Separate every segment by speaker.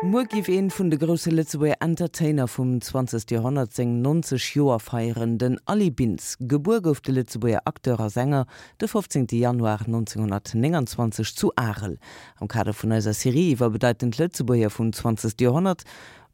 Speaker 1: Muer giff een vun de grousse Lëtzebuerger Entertainer vum 20. Joerhonnert seng 90 Joer feieren, den Aly Bintz. Gebuer gouf de Lëtzebuerger Acteur a Sänger de 15. Januar 1929 zu Arel. Am Kader vun eiser Serie iwwer bedeitend Lëtzebuerger vum 20. Joerhonnert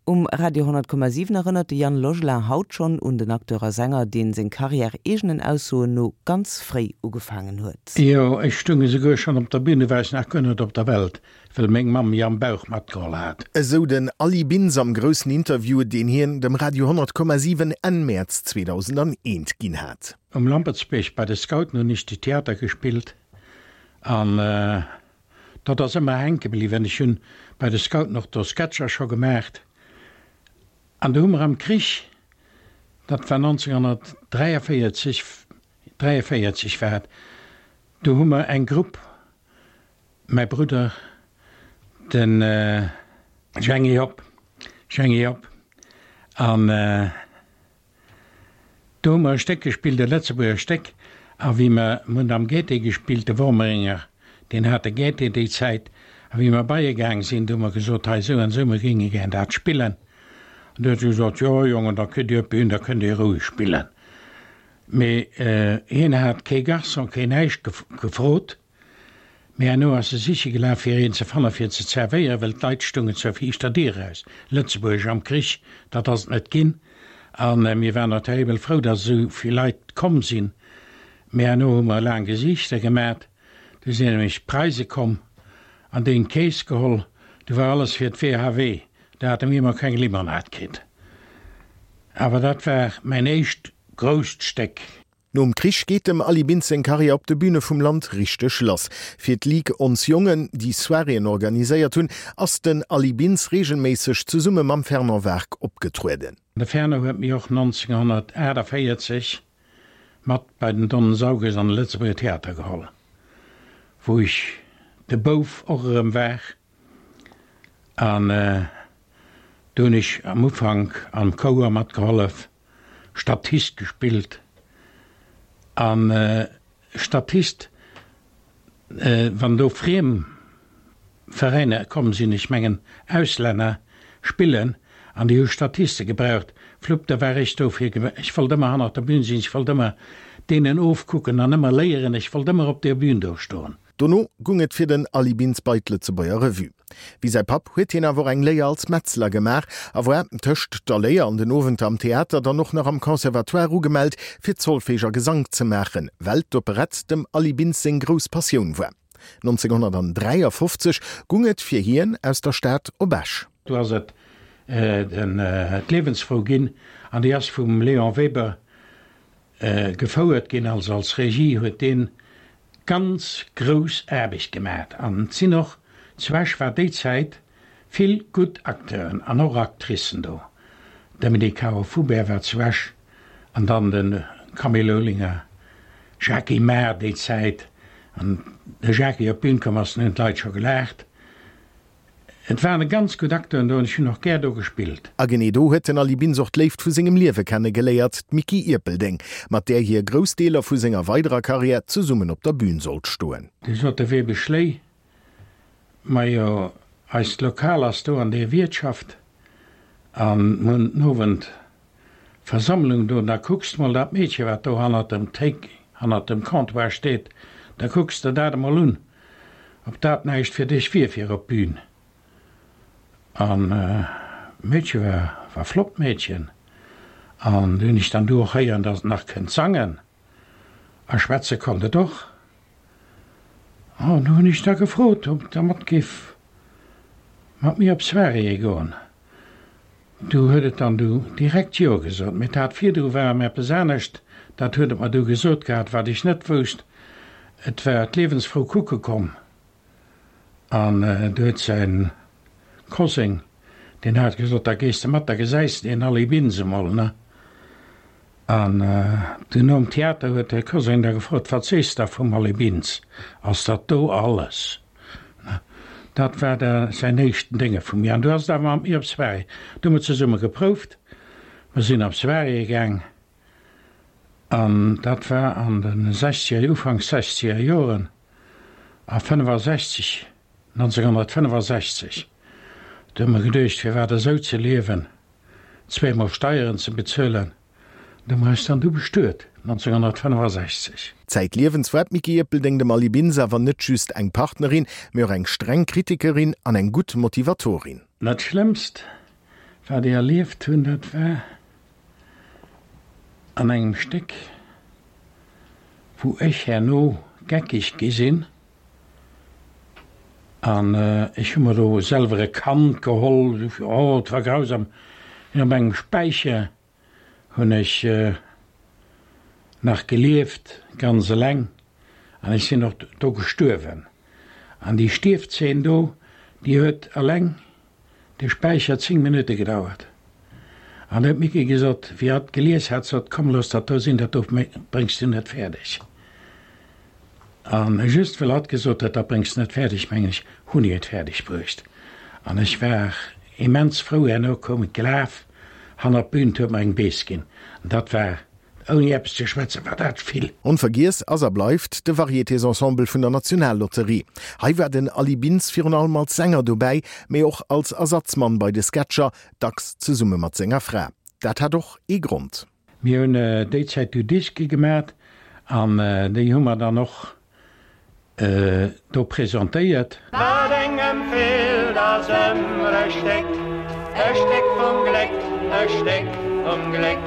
Speaker 1: Um Radio 100,7 erënnert de Yann Logelin haut schonn un den Acteur a Sänger, deen seng Karriär eegenen Aussoen no ganz fréi ugefaangen huet.
Speaker 2: Jo, ech stung esouguer schonn op der Bühn, du war ech nach guer net op der Welt, well meng Mamm mi am Bauch matgeholl hat.
Speaker 3: Esou den Aly Bintz am groussen Interview, deen hien dem Radio 100,7 Enn Mäerz 2001 ginn hat.
Speaker 2: Um Lampertsbierg bei de Scouten hunn ech de Theater gespillt an Dat ass ëmmer hänke bliwwen. Ech hunn bei de Scouten och do Sketcher scho gemaacht. An du hu mer am Krich, dat war 1943, 43 war et, do hu mer eng Grupp, mäi Brudder, de Jhängi Hopp, Jhängi Hopp, an Do hu mer e Stéck gespillt, e Lëtzebuerger Stéck, a wéi mer, mer hunn am Gaîté gespillt, de Wormeringer, deen hat de Gaîté déi Zäit, a wéi mer bei e gaang sinn, do hu mer gesot, hei esou an esou, mer géinge gär dat spillen. An du huet e gesot, jo Jongen, da kritt Dir op d'Bün, da kënnt Dir roueg spillen. Mee hien hat kee Garçon, keen näischt gefrot. Mee herno ass e siche gelaf fir een ze fanne fir ze zerwéieren, well d'Leit stungen zur viischter Dier eraus. Lëtzebuergesch am Krich, dat ass et net ginn. A mir waren och terribel frou, datt esou vill Leit komm sinn. Mee herno hu mer laang Gesiichter gemat. Du sinn nämlech d'Preise komm an déi hunn d'Keess geholl. Du war alles fir d'WHW. Da hate mir emol keng Limonad kritt. Awer dat war mäin éischt grousst Stéck.
Speaker 3: Nom Krich geet dem Aly Bintz seng Karriär op de Büne vum Land richteg lass. Fir d'Ligue Ons Jongen, déi Soiréeën organiséiert hunn, ass den Aly Bintz reegelméisseg zesumme mam Fernand Wark opgetrueden.
Speaker 2: De Fernand huet mi och 1948 mat bei den Don Sauges an de Lëtzebuerger Theater geholl, wou ech de Bouf och erëm war. An do hunn ech am Ufank am Chouer matgehollef. Statist gespillt an Statist wann do friem Veräiner komm sinn, ech mengen Auslänner spillen an déi hu Statiste gebraucht, flupp da war ech do fir, ech wollt ëmmer hannert der Bühn sinn, ech wollt ëmmer deenen ofkucken an ëmmer léieren, ech wollt ëmmer op der Bühn do stoen.
Speaker 3: Dono gung et fir den Aly Bintz bei d'Lëtzebuerger Revue. Wéi säi Papp huet hien awer och eng Léier als Metzler gemaach a war tëscht der Léier an den Owenter am Theater dann och nach am Conservatoire ugemellt, fir Zolfeeg a Gesank ze maachen, well d'Operett dem Aly Bintz seng grouss Passioun war. 1953 gung et fir hien aus der Stad op Esch.
Speaker 2: Do ass et d'Liewensfrou ginn an déi ass vum Léon Weber gefouert ginn. Also als Regie huet deen ganz grouss Aarbecht gemat an et sinn och, zu Esch war déi Zäit vill gutt Acteuren an och Actricen do, Dominique Caro-Foubert war zu Esch an dann de Camille Olinger, Jacky Mahr déi Zäit, an de Jacky op d'Bün komm ass, dunn hunn d'Leit scho gelaacht. Et waren ganz gutt Acteuren do an ech hunn och gär do gespillt.
Speaker 3: A genee do huet den Aly Bintz och d'Léift vu sengem Liewe kenne geléiert, d'Micky Ierpeldeng, mat där hie grouss Deeler vu senger weiderer Karriär zesummen op der Bün sollt stoen.
Speaker 2: Du sot de Webesch Schléi, Majo, eist Lokal ass do an deer Wiertschaft an mir hunn den Owend Versammlung do, da kucks de mol dat Meedche wat do hannert dem Téik, hannert dem Comptoir steet, da kucks de dat emol un, ob dat näischt fir dech wier fir op d'Bün. An d'Meedche war, war flott Meedchen an du hunn ech dann du och héieren, datt et nach kënnt sangen a schwätze konnt et och. An du hunn ech da gefrot, ob et da mat géif mat mir op Soiréeë goen. Du huet et dann du direkt Jo gesot. Mee dat virdru war em eppes anescht, dat huet et mer du gesot gehat, wat ech net wousst. Et war d'Liewensfrou kucke komm an du huet säin Koseng, deen hat gesot, da gees de mat, da gesäis de deen Aly Bintz emol, ne? An du nom Theater huet de Koseng da gefrot, Wat sees de da vum Aly Bintz, ass dat do alles? Dat war da säin éischten Dénge vu mir. An du ass et awer mat mir op Soirée. Du hu mer zesumme geprouft. Mer sinn op Soiréeë gaang. An dat war an de sechzeger, Ufanks sechzeger Joren. A 65. 1965. Do hu mer geduecht, firwat esou ze liewen, zweemol Steieren ze bezuelen. Do hu mer eis dann du bestuet, 1965.
Speaker 3: Zäitliewens war d'Micky Ierpeldeng dem Aly Bintz awer net just eng Partnerin, mee och eng streng Kritikerin an eng gutt Motivatorin.
Speaker 2: Dat Schlëmmst, wat ech erlieft hunn, dat war an engem Stéck, wou ech herno geckeg gi sinn an ech hu mer do selwer e Kand geholl, oh et war grausam, op engem Späicher hunn ech nach gelieft, ganz eleng, an ech sinn och do gestuerwen. An déi Stierfzeen do, déi huet eleng de Späicher 10 Minutte gedauert. An da huet d'Micky gesot, wéi hatt gelies hat, sot, Komm, looss dat do sinn, dat do bréngs du net fäerdeg. An just well hatt gesot huet, dat bréngs de net fäerdeg, mengen ech, hunn ech et fäerdeg bruecht. An ech war immens frou. Herno koum et gelaf hannert d'Bün, 't huet mer eng Bees ginn. An dat war Ouni eppes ze schwätzen, war dat vill.
Speaker 3: Onvergiess ass a bleift de Varietésensemble vun der Nationallotterie. Hei war den Aly Bintz virun allem als Sänger dobäi, mee och als Ersatzmann bei de Sketcher, dacks zesumme mat senger Fra. Dat hat och ee Grond.
Speaker 2: Mir hunn déi Zäit du Diske gemat an déi hu mer dann och do presentéiert.
Speaker 4: Wat engem feelt ass ëmmer e Stéck, e Stéck vum Gléck, e Stéck vum Gléck.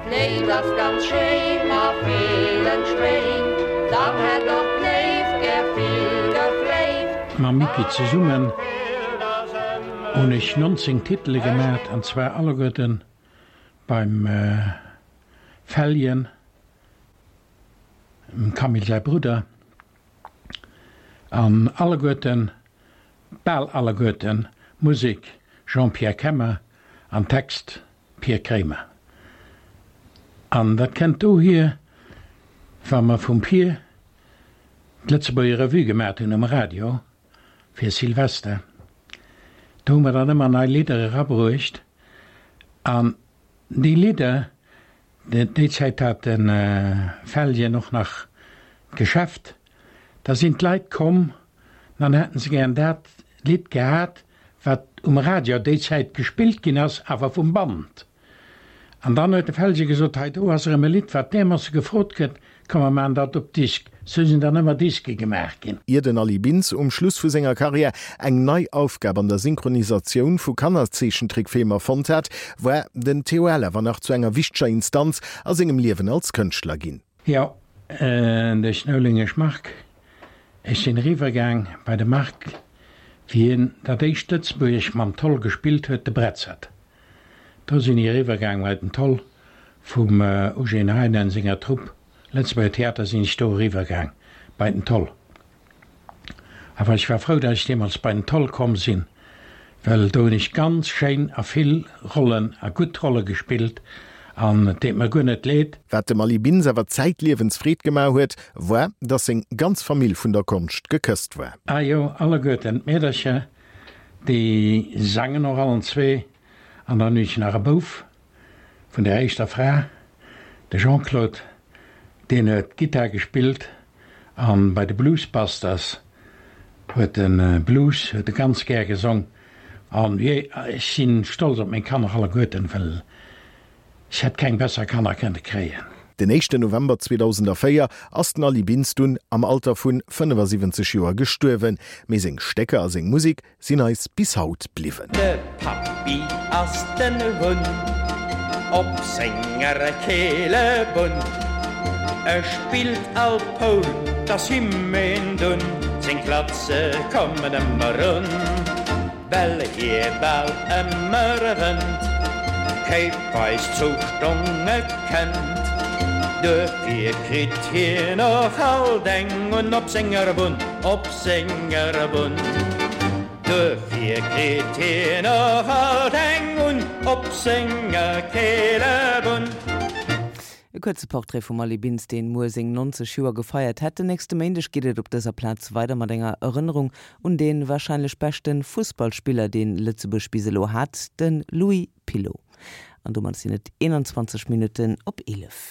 Speaker 4: D'Léift ass ganz schéin a villen Schwéin, dann hätt och d'Léift gär vill gefléift.
Speaker 2: Mam Micky zesummen hunn ech 19 Titele gemat, an zwar alleguerten beim Feljen. Dem Camille säi Brudder, an alleguerten, bal alleguerten, Musek Jean-Pierre Kemmer an Text Pir Kremer. An dat kennt dohier, wa mer vum Pir d'Lëtzebuerger Revue gemat hunn um Radio fir Silvester, do hu mer dann ëmmer nei Lidder erabruecht an déi Lidder, Déi Zäit hat de Felgen och nach d'Geschäft. Da sinn d'Leit komm, dann hätten se gären dat Lidd gehat, wat um Radio déi Zäit gespillt ginn ass, awer vum Band. An dann huet de Felge gesot, Hei do ass erëm e Lidd, wat därmoosse gefrot gëtt, Komm mer maachen dat op Disk. Sou sinn dann ëmmer Diske gemaach ginn.
Speaker 3: Ier den Aly Bintz um Schluss vu senger Karriär eng nei Aufgab an der Synchronisatioun vu Kannerzeechentrickfilmer fonnt hat, war den TOL awer nach zu enger wichteger Instanz a sengem Liewen als Kënschtler ginn.
Speaker 2: Jo, de Schnoulingesch Marc. Ech sinn eriwwer gaang bei de Marc, wéi hien dat éischt Lëtzebuergesch mam Toll gespillt huet, de Bretzert. Do sinn ech eriwwer gaang bei den Toll vum Eugène Heinen senger Trupp Lëtzebuerger Theater sinn ech do eriwwer gaang bei den Toll. Awer ech war frou, datt ech deemools bei den Toll komm sinn, well do hunn ech ganz schéin a vill Rollen a gutt Rolle gespillt an et deet mer guer net leed.
Speaker 3: Wat dem Aly Bintz awer zäitliewens Freed gemaach huet, war, datt seng ganz Famill vun der Konscht gekësst war.
Speaker 2: Ah jo, alleguerten d'Meedercher, déi sangen och allen zwee an dann hunn ech nach e Bouf, Vun der éischter Fra, de Jean-Claude, deen huet Gittar gespillt an bei de Blues Busters huet e Blues huet e ganz gär gesong. An jee, ech sinn stolz op meng Kanner alleguerten, well ech hätt keng besser Kanner kënne kréien.
Speaker 3: Den éischten November 2004 ass den Aly Bintz dunn am Alter vun 75 Joer gestuerwen, mee seng Stécker a seng Musek sinn eis bis haut bliwwen.
Speaker 4: De Pappi ass den Hunn op senger Keelebunn. E spillt all Poul, 't ass him een Dunn, seng Klatze kommen ëmmer un. Well hie bal ëmmer wënnt, kéipweis Zoustonge kennt. Duerfir kritt hien och alt eng un op senger Bunn, op senger Bunn. Duerfir kritt hien och alt eng un op senger Keelebunn.
Speaker 1: E kuerze Portrait vum Aly Bintz, deen muer seng 90 Joer gefeiert hätt. Den nächste Méindeg geet et op dëser Plaz weider mat enger Erënnerung un dee warscheinlech beschte Fussballspiller, deen Lëtzebuerg bis elo hat, de Louis Pilot. An domat sinn et 21 Minutten op 11.